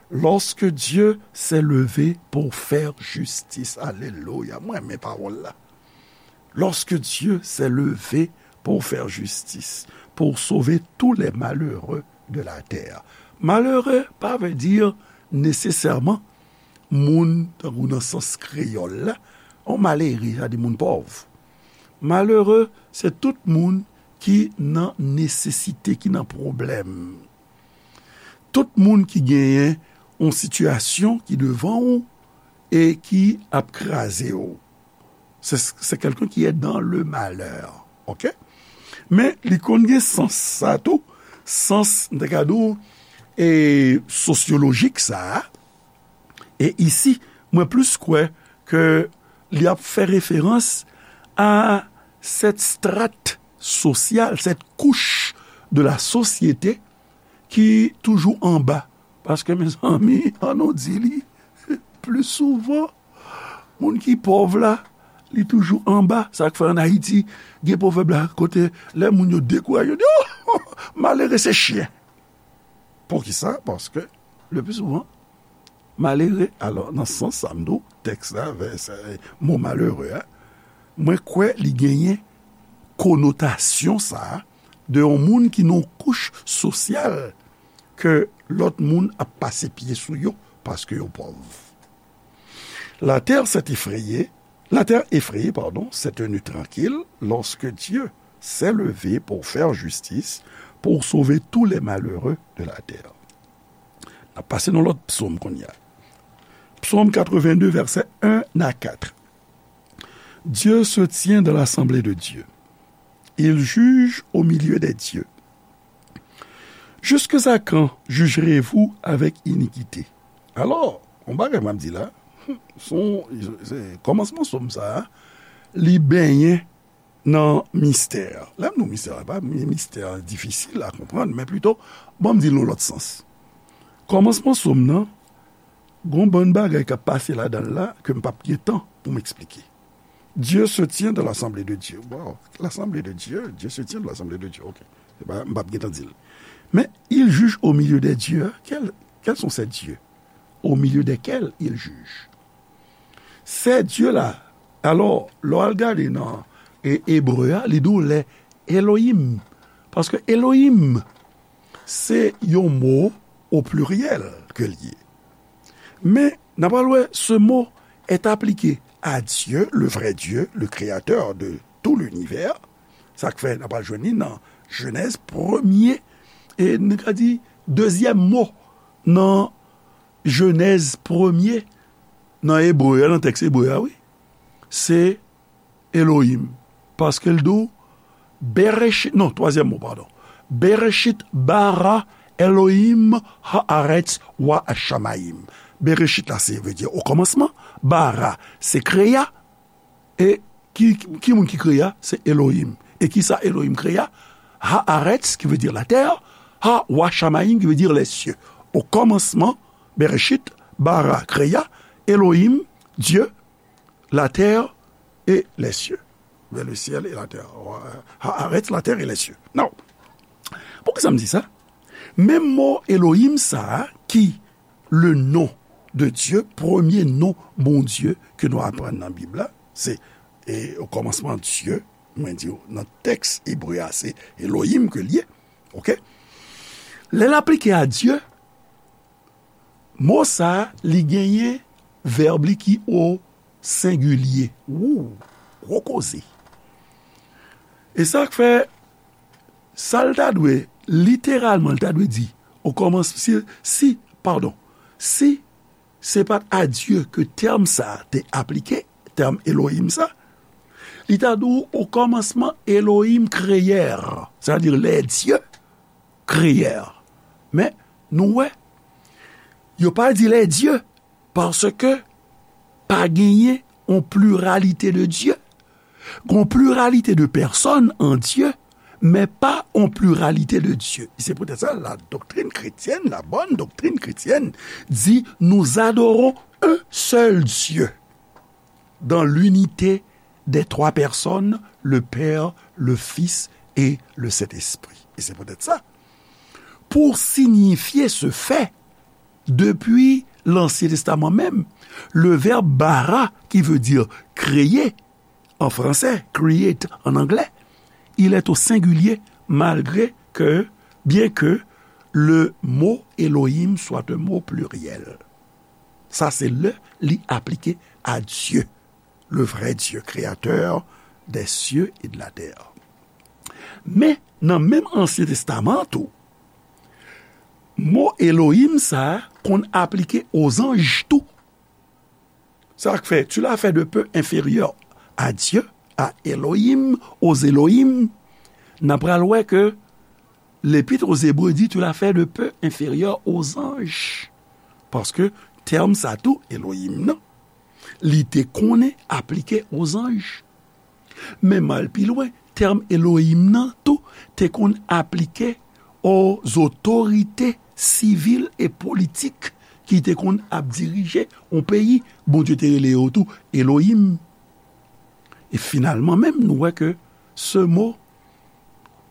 lorsque Dieu s'est levé pour faire justice. Alelouya. Mwen renmen pawòl la. Lorsque Dieu s'est levé pour faire justice, pour sauver tous les malheureux de la terre. Malere pa vle di nesesèman moun, tankou nan sans kreyòl la, yon malere, sa di moun pòv. Malere, se tout moun ki nan nesesite, ki nan pwoblèm. Tout moun ki genyen yon sitiyasyon ki devan ou e ki ap kraze w. C'est, c'est quelqu'un qui est dans le malheur. Oke? Men li konn gen sans sa tou, sans, m ta ka di w, e sosyolojik sa a. E isi, mwen plis kwè ke li ap fè referans a cette strate sociale, cette couche de la société ki toujou anba. Paske, mezanmi, an nou di li, pli souvan, moun ki pòv la, li toujou anba. Sa k fè an Ayiti, gen pwovèb la, kote lè moun yo dekouraje, yo di, "Oh, malere se chyen." Poukisa? Paske, le pli souvan, malere. Alò, nan sans sa, m di w, tèks la, vèsè, mo malere a, mwen kwè li genyen konotasyon sa a de yon moun ki nan yon kouch sosyal ke lòt moun ap pase pye sou yo paske yo pòv. La terre s'est effrayée, la terre effrayée, pardon, s'est tenue tranquille lorsque Dieu s'est levé pour faire justice, pour sauver tous les malheureux de la terre. N ap pase nan lòt psaume kounye a. Psaume quatre-vingt-deux, vèsè un à quatre. Dieu se tient dans l'assemblée de Dieu. Il juge au milieu des dieux. Jusqu'à quand jugerez-vous avec iniquité? Alò, yon bagay m ap di la, se yon, se, kòmansman sòm sa a, li benyen nan mistè. Lè m di w mistè, se pa yon mistè difisil a konprann, men plito, ban m di l nan lòt sans. Kòmansman sòm nan, gon bann bagay k ap pase ladan l la ke m p ap gen tan pou m eksplike. Dieu se tient dans l'assemblée de Dieu. Wow, l'assemblée de Dieu, Dieu se tient dans l'assemblée de Dieu. Ok. Se pa, m p ap gen tan di l. Men, il juge au milieu des dieux. Quels, quels sont ces dieux au milieu desquels il juge? Ces dieux-là, alò, lè w al gade nan e, ebre a, li di w les Elohim. Paske Elohim, se yon mo o pliryèl ke l ye. Men, n a pral wè, ce mot est appliqué à Dieu, le vrai Dieu, le créateur de tout l'univers. Sa k fè n a pral jwenn li nan Jenèz premye, e nou ka di dezyèm mo nan Jenèz premye, nan ebre a, nan tèks ebre a, wi. Se Elohim. Paske l di w, Bereshit, non, twazyèm mo, padon. Bereshit bara Elohim haaretz wa shamayim. Bereshit la, se vle di o kòmansman. Bara, se kreya. E ki, ki moun ki kreya? Se Elohim. E ki sa Elohim kreya? Haaretz, ki vle di la terre. Ha wa shamayim, ki vle di les cieux. O kòmansman, Bereshit, bara, kreya, Elohim, Dieu, la terre et les cieux. Vers le ciel et la terre. Haaretz, la terre et les cieux. Non. Poukisa m di sa? Menm mo Elohim sa a, ki le nom de Dieu, premye non Bondye ke nou aprann nan Bib la, se, e, o kòmansman Dye, mwen di w, nan tèks ebre a, se Elohim ke l ye, oke? Lè l aplike a Dye, mo sa a, li genyen vèb li ki o sengilye. Wou, gwo koze. E sa k fè, sa l ta dwe, literalman, l ta dwe di, o kòmans-, si, si, padon, si se pa t a Dye ke tèm sa a te aplike, tèm Elohim sa, li ta di w, o kòmansman, Elohim kreyè, sètadi les dieux créèrent. Men, nou wè, yo pa di les dieux, paske pa genyen yon pliralite de Dye. Gon pliralite de pèsòn an Dye, men pa yon pliralite de Dye. E se poutèt sa, la doctrine chrétienne, la bonne doctrine chrétienne, dit, nous adorons un seul Dieu dans l'unité des trois personnes, le Père, le Fils et le Saint-Esprit. E se poutèt sa, pou siyifye se fè, depi Lansyen Testaman menm, le verbe bara, qui veut dire créer, en français, create en anglais, il est au singulier, malgré que, bien que le mot Elohim soit un mot pluriel. Sa se lè li aplike a Dye, le vrai Dieu, créateur des cieux et de la terre. Men, nan menm Ansyen Testaman tou, mo Elohim sa a konn aplike o zanj tou. Sa k fè, tu l'as fait de peu inférieur à Dieu, à Elohim, aux Elohim. N a pral wè ke Lepit o Zebre di, tu l'as fait de peu inférieur aux anges. Paske tèm sa tou, Elohim nan, li te konnen aplike o zanj. Men m al pi lwen, tèm Elohim nan tou te konn aplike o zotorite sivil e politik ki te konn ap dirije yon peyi. Bondye te rele yo tou Elohim. E finalman menm, nou wè ke ce mot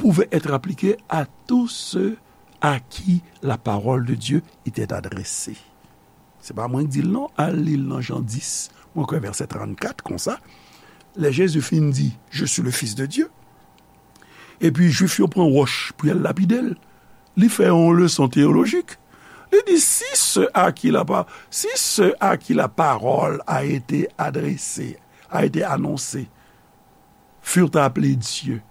pouvait être appliqué à tous ceux à qui la parole de Dieu était adressée. Se pa mwen ki di l non, al li l nan Jan dis, mwen kwè vèsè trannkat konsa. Lè Jezi fin di, Je suis le Fils de Dieu, epi Jwif yo pran wòch pou y al lapide l, li fè yon leson teyolojik. Li di, si ceux à qui la pa-, si ceux à qui la parole a été adressée, a été annoncée, furent appelés dieux,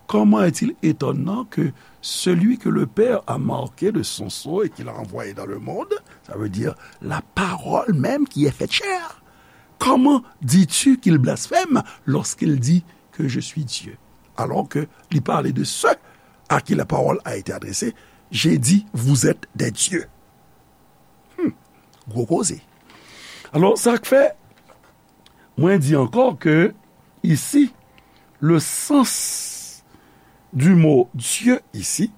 comment est-il étonnant que celui que le Père a marqué de son sceau et qu'il a envoyé dans le monde, ça veut dire la parole même qui est faite chair, comment dis-tu qu'il blasphème lorsqu'il dit que je suis Dieu, alors que li pale de ceux à qui la parole a été adressée, j'ai dit, vous êtes des dieux. Hmm. Gwo koze. Alò, sa k fè, mwen di ankò ke isi, le sens du mot Dieu isi,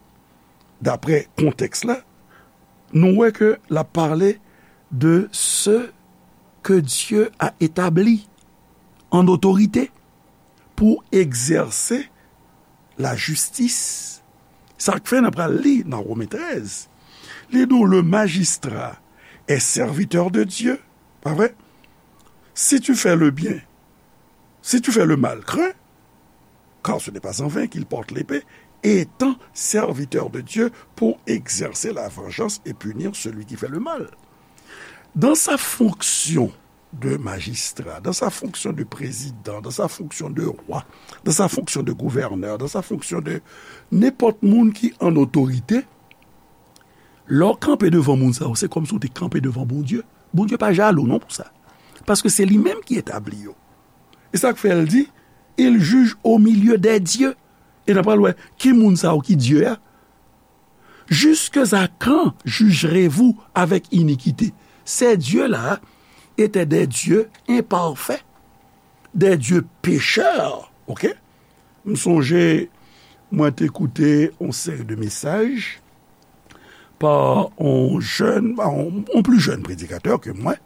daprè kontèks la, nou wè ke l ap pale de ceux que Dieu a établis en autorité pour exercer la justice. Sa k fè n ap pral li nan Women trèz. Li di w, le magistrat est serviteur de Dieu, pa vre? Si tu fais le bien, si tu fais le mal, crains, car ce n'est pas en vain qu'il porte l'épée, étant serviteur de Dieu pour exercer la vengeance et punir celui qui fait le mal. Dans sa fonction de magistrat, dans sa fonction de président, dans sa fonction de roi, dans sa fonction de gouverneur, dans sa fonction de nenpòt moun ki an otorite, lè w kanpe devan moun sa yo, se kòmsi w te kanpe devan Bondye. Bondye pa jalou non pou sa. Paske se li menm ki etabli yo. E sa k fè l di, il juge au milieu des dieux. E n ap pral wè ki moun sa yo ki Dye a. Jusque à quand jugerez-vous avec iniquité? Ces dieux-là étaient des dieux imparfaits, des dieux pécheurs, ok? M sonje, mwen te koute yon seri de mesaj pa yon jèn, pa yon, yon pli jèn predikatè ke mwen,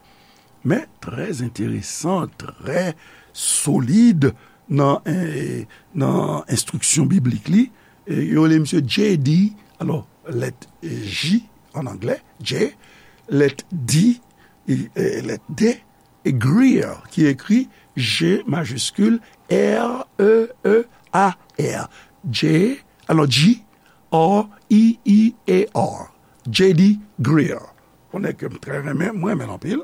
men trè enteresan, trè solid nan, eh, nan enstriksyon biblik li. E yo rele misye J D, alò, lèt J an anglè, J, lèt D, e, e, lèt D, e Greer, ki ekri G majiskil, R E E A R. J, alò, G, R E E A R. J D Greer. Yon nèg ke m trè renmen, mwen renmen l anpil.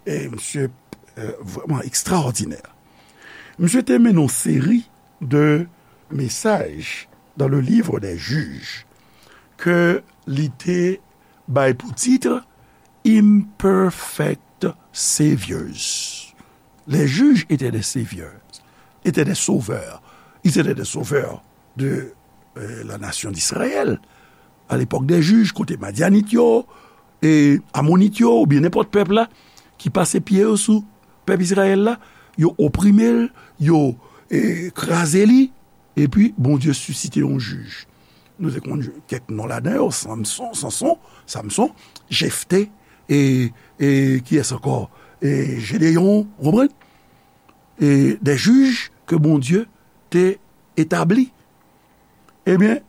E misye, eh, vrèman ekstraòdinè. Misye te mennen yon seri de mesaj dans le livre des Juges ke li te bay pou tit Imperfect Saviors. Les juges étaient des saviors, étaient des sauveurs. Ils étaient des sauveurs de, euh, la nation d'Israël. A lepòk de jij, kote Madyanit yo, e Amonit yo, oubyen nenpòt pèp la, ki pase pye yo sou pèp Izrayèl la, yo oprime l, yo, e, kraze li, epi Bondye sisite yon jij. Nou te konn kèk non ladan yo, Samson, Sanson, Samson, Jefte, e, e kiyès ankò? E Jedeyon, ou konprann? E de jij ke Bondye te etabli. Ebyen,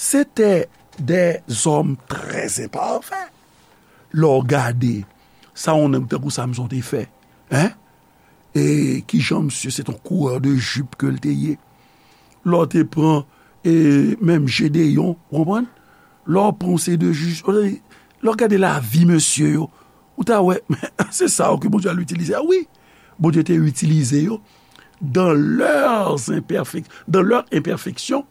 se te de zòm trè enpafè. Lè w gade sa yon nèg tankou Samson te fè, en? E kijan misye se t yon kourè de jip ke l te ye. Lè w te pran, e, menm Jedeyon, ou konprann? Lè w pran yon seri de jij, lè w gade lavi mesye yo, ou ta wè, se sa yo ke Bondye al itilize a, wi. Bondye te itilize yo dans leurs imperfec-, dans leur imperfection,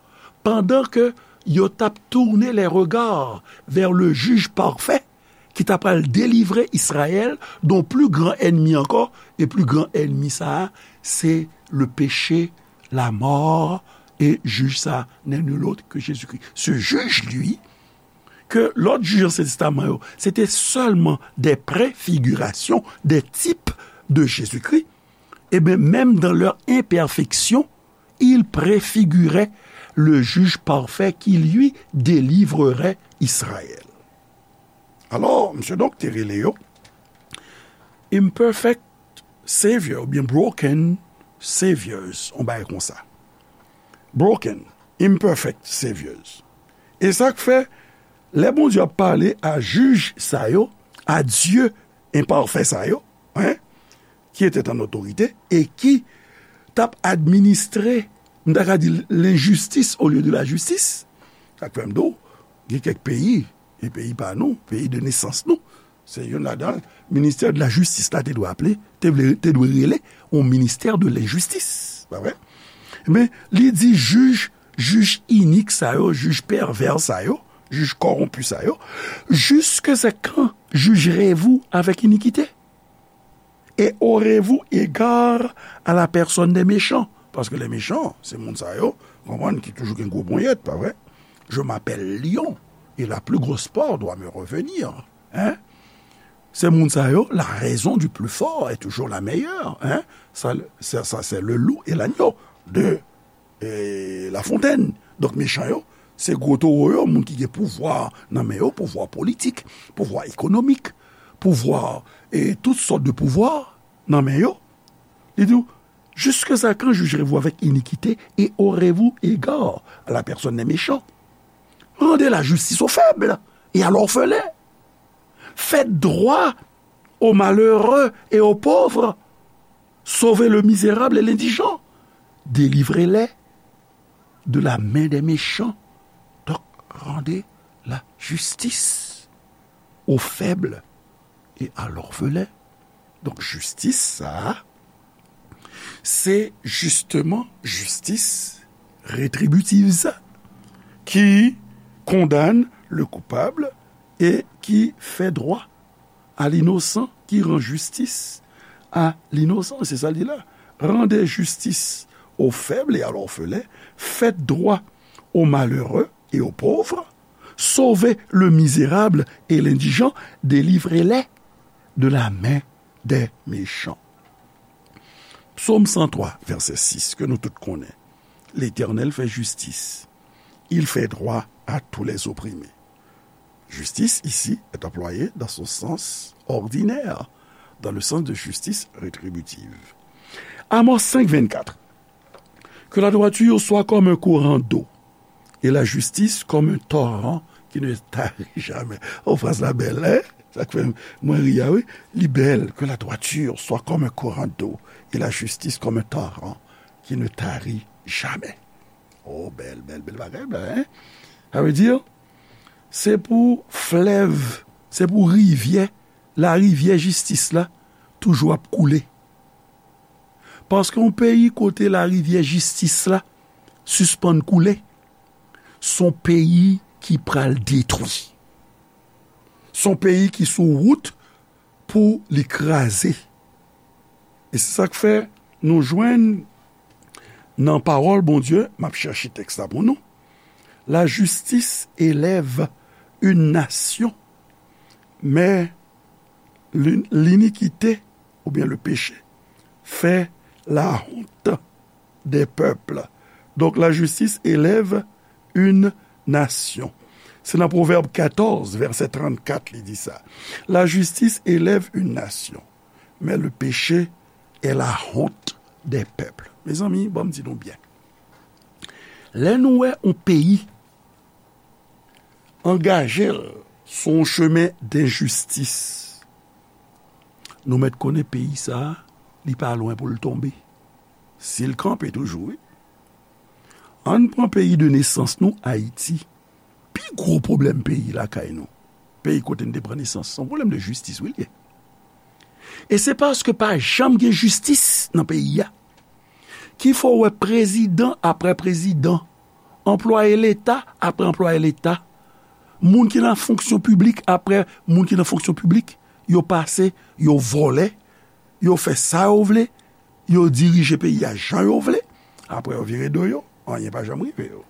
pandan ke yo t ap tourner les regards vers le juge parfait, ki ta pral delivre Izrayèl de yon pli gran ènmi ankò, e pli gran ènmi sa a, se le péché, la mort, e jij sa a, n'est nul autre que Jésus-Christ. Ce juge, lui, ke lòt jij Ansyen Testaman yo, se te sèlman de prefigirasyon, de tip de Jezikri, ebyen, menm dans leur imperfection, il préfigurait le juge parfait qui, lui, délivrerait Israël. Alò, misye donk te rele yo imperfect savior oubyen broken saviors, on bagay konsa. Broken, imperfect saviors. E sa k fè, lè Bondye ap pale a jij sa yo, a Dieu enpafè sa yo, hein, qui étaient en autorité et qui t ap administre, m ta ka di, lenjistis olye de lajistis. Sa k fè m di w, gen kèk peyi, e peyi pa nou, peyi de nesans nou, se youn ladan, ministè de lajistis la te dwe aple, te vle, te dwe rele yon ministè de lenjistis, pa vre? Men, li di jij, jij inik sa yo, jij pèvè sa yo, jij kòwonpi sa yo, jusque quand jugerez-vous avec iniquité? Et aurez-vous égard à la personne des méchants? Paske les méchants, se moun sa yo, konprann, ki toujou gen gwo ponyèt, pa vre? Je m'appelle lion, et la plus grosse proie doit me revenir. Hein? Se moun sa yo, la raison du plus fort est toujours la meilleure. Hein? Ça, ça, ça, c'est le loup et l'agneau de e, Lafontaine. Donk, mechan yo, se gwo towo yo, moun ki gen pouvwa nan men yo, pouvwa politik, pouvwa ekonomik, pouvwa, e, tout sòt de pouvwa nan men yo. Li di w, jusque quand jugerez-vous avec iniquité et aurez-vous égard à la personne des méchants? Rendez la justice aux faibles et à l'orphelin. Faites droit aux malheureux et aux pauvres. Sauvez le misérable et l'indigent. Délivrez-les de la main des méchants. Donc, rendez la justice aux faibles et à l'orphelin. Donk, jistis sa a, se jisteman jistis retribitiv sa, ki kondane le coupable et qui fait droit à l'innocent, qui rend justice à l'innocent. Se sa l di la. Rendez justice aux faibles et à l'orphelin, faites droit aux malheureux et aux pauvres, sauvez le misérable et l'indigent, délivrez-les de la main des méchants. Psaume cent trois, verset six, ke nou tout konnen. L'Éternel fait justice. Il fait droit à tous les opprimés. Justice, ici, est employée dans son sens ordinaire, dans le sens de justice rétributive. Amos cinq vingt-quatre. Que la droiture soit comme un courant d'eau, et la justice comme un torrent qui ne tarit jamais. Oh, fraz la bèl, hein? Sa k fè mwen ri a, wi. Li bèl. Que la droiture soit comme un courant d'eau, et la justice comme un torrent qui ne tarit jamais. Oh, bèl, bèl, bèl bagay, bèl, hein? Sa vle di, se pou flèv, se pou rivyè, larivyè jistis la, toujou ap koule. Paske yon peyi kote larivyè jistis la sispann koule, se yon peyi ki pral detwi. Se yon peyi ki sou wout pou li kraze. E se sa k fè nou jwenn nan pawòl Bondye, m ap chèche tèks la pou nou, la justice élève une nation, mais l'in-, l'iniquité, ou bien le péché, fait la honte des peuples. Donc, la justice élève une nation. Se nan Pwovèb katòz, vèsè trannkat, li di sa. La justice élève une nation, mais le péché est la honte des peuples. Mezanmi, ban m di nou byen. Lè nou wè yon peyi angaje l sou yon chemen denjistis, nou mèt konnen peyi sa a, li pa lwen pou l tonbe. Si l kanpe toujou, wi. Ann pran peyi de nesans nou, Ayiti. Pi gwo pwoblèm peyi lakay nou, peyi kote n te pran nesans, se yon pwoblèm de jistis, wi, l ye. E se paske pa janm gen jistis nan peyi a ki fè w wè prezidan apre prezidan, anplwaye leta apre anplwaye leta, moun ki nan fonksyon piblik apre moun ki nan fonksyon piblik, yo pase, yo vòlè, yo fè sa yo vle, yo dirije peyi a jan yo vle, apre yo vire do yo, anyen pa janm rive yo.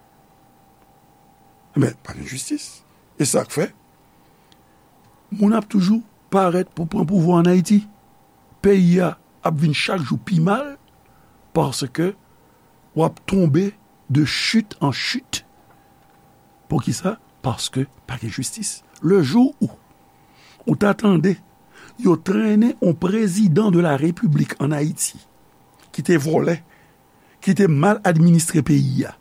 Men, pa gen jistis. E sa k fè, moun ap toujou parèt pou pran pouvwa ann Ayiti. Peyi a ap vin chak jou pi mal, paske w ap tonbe de chute en chute. Poukisa? Paske pa gen jistis. Le jou ou, ou ta tande yo trennen yon prezidan de la repiblik ann Ayiti, ki te vòlè, ki te mal administre peyi a,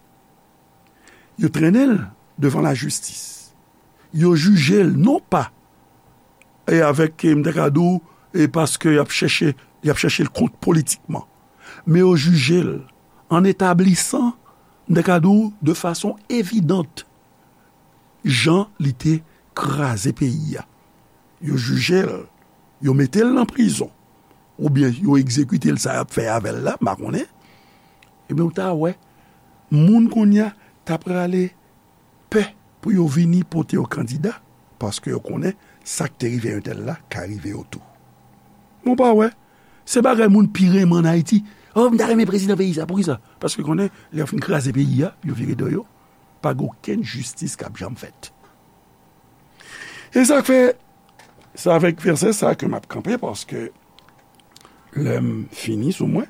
yo trennen l devan lajistis. Yo jije l non pa e avèk, e, m ta ka di w, e paske y ap chèche, y ap chèche l kont politikman. Men yo jije l an etablisan, m ta ka di w, de fason evidant, jan li te kraze peyi a. Yo jije l, yo mete l nan prizon, oubyen yo egzekite l, sa y ap fè avè l la, m pa konnen. Ebyen, ou ta wè, moun kounye a ta prale pè pou yo vini pote yo kandida, paske yo konnen sa k te rive entèl la ka rive yo tou. Men w pa wè, se bagay moun pi renmen ann Ayiti. Oh, m ta renmen prezidan peyi sa. Poukisa? Paske konnen, lè yo fin kraze peyi a, yo vire do yo, pa gen okenn jistis k ap janm fèt. E sa k fè, se avèk vèsè sa ke m ap kanpe, paske lè m fini sou mwen,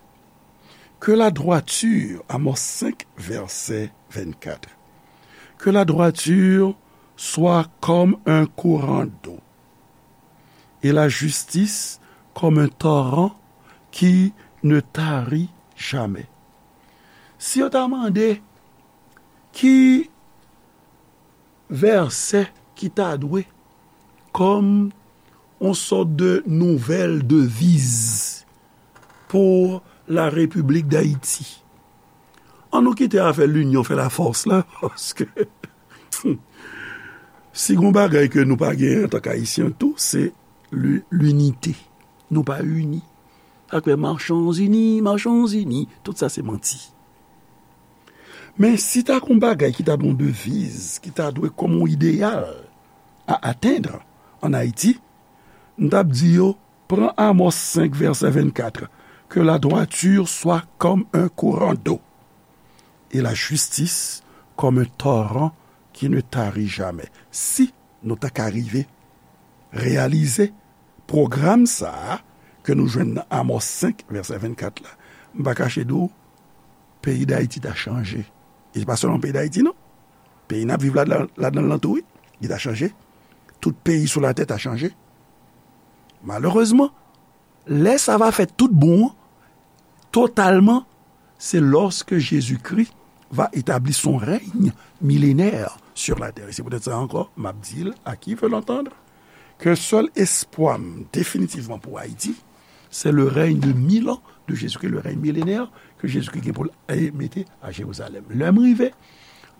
que la droiture, Amos cinq, verset vingt-quatre, que la droiture soit comme un courant d'eau, et la justice comme un torrent qui ne tarit jamais. Si yo ta mande ki vèsè ki ta dwe kòm yon sòt de nouvèl deviz pour la République d'Haïti. Ann nou kite afè l'union fait la force la, paske si gon bagay ke nou pa genyen antank Ayisyen tou, se li-, linite. Nou pa ini. Sa k fè marchons unis, marchons unis, tout sa se manti. Men si ta gon bagay ki ta dwe yon deviz, ki ta dwe kòm yon ideyal à atteindre en Haïti, m t ap di yo, pran Amos cinq, verset vingt-quatre, que la droiture soit comme un courant d'eau, et la justice comme un torrent qui ne tarit jamais. Si nou ta ka rive reyalize pwogram sa a ke nou jwenn nan Amos cinq, verset vingt-quatre la, m pa kache di w, peyi Dayiti ta chanje. E se pa sèlman peyi Dayiti, non. Peyi n ap viv ladan, ladan l lan tou, wi, li ta chanje. Tout peyi sou latè ta chanje. Malerezman, lè sa va fèt tout bon an, totalman, c'est lorsque Jésus-Christ va établir son règne millénaire sur la terre. Et c'est peut-être ça encore, m ap di l, à qui veut l'entendre, que sèl espwa m definitivman pou Ayiti, c'est le règne de mille ans de Jésus-Christ, le règne millénaire que Jésus-Christ gen pou l, e, mete a Jérusalem. Lè m rive,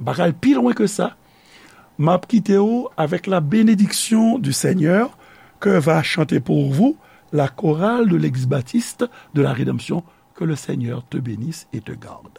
m pa ka al pi lwen ke sa. M ap kite w avec la bénédiction du Seigneur que va chanter pour vous la chorale de l'église baptiste de la Rédemption. Que le Seigneur te bénisse et te garde.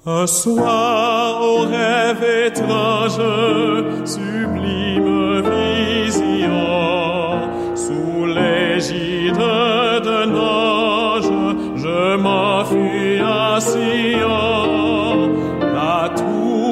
Un soir, au rêve étrange, sublime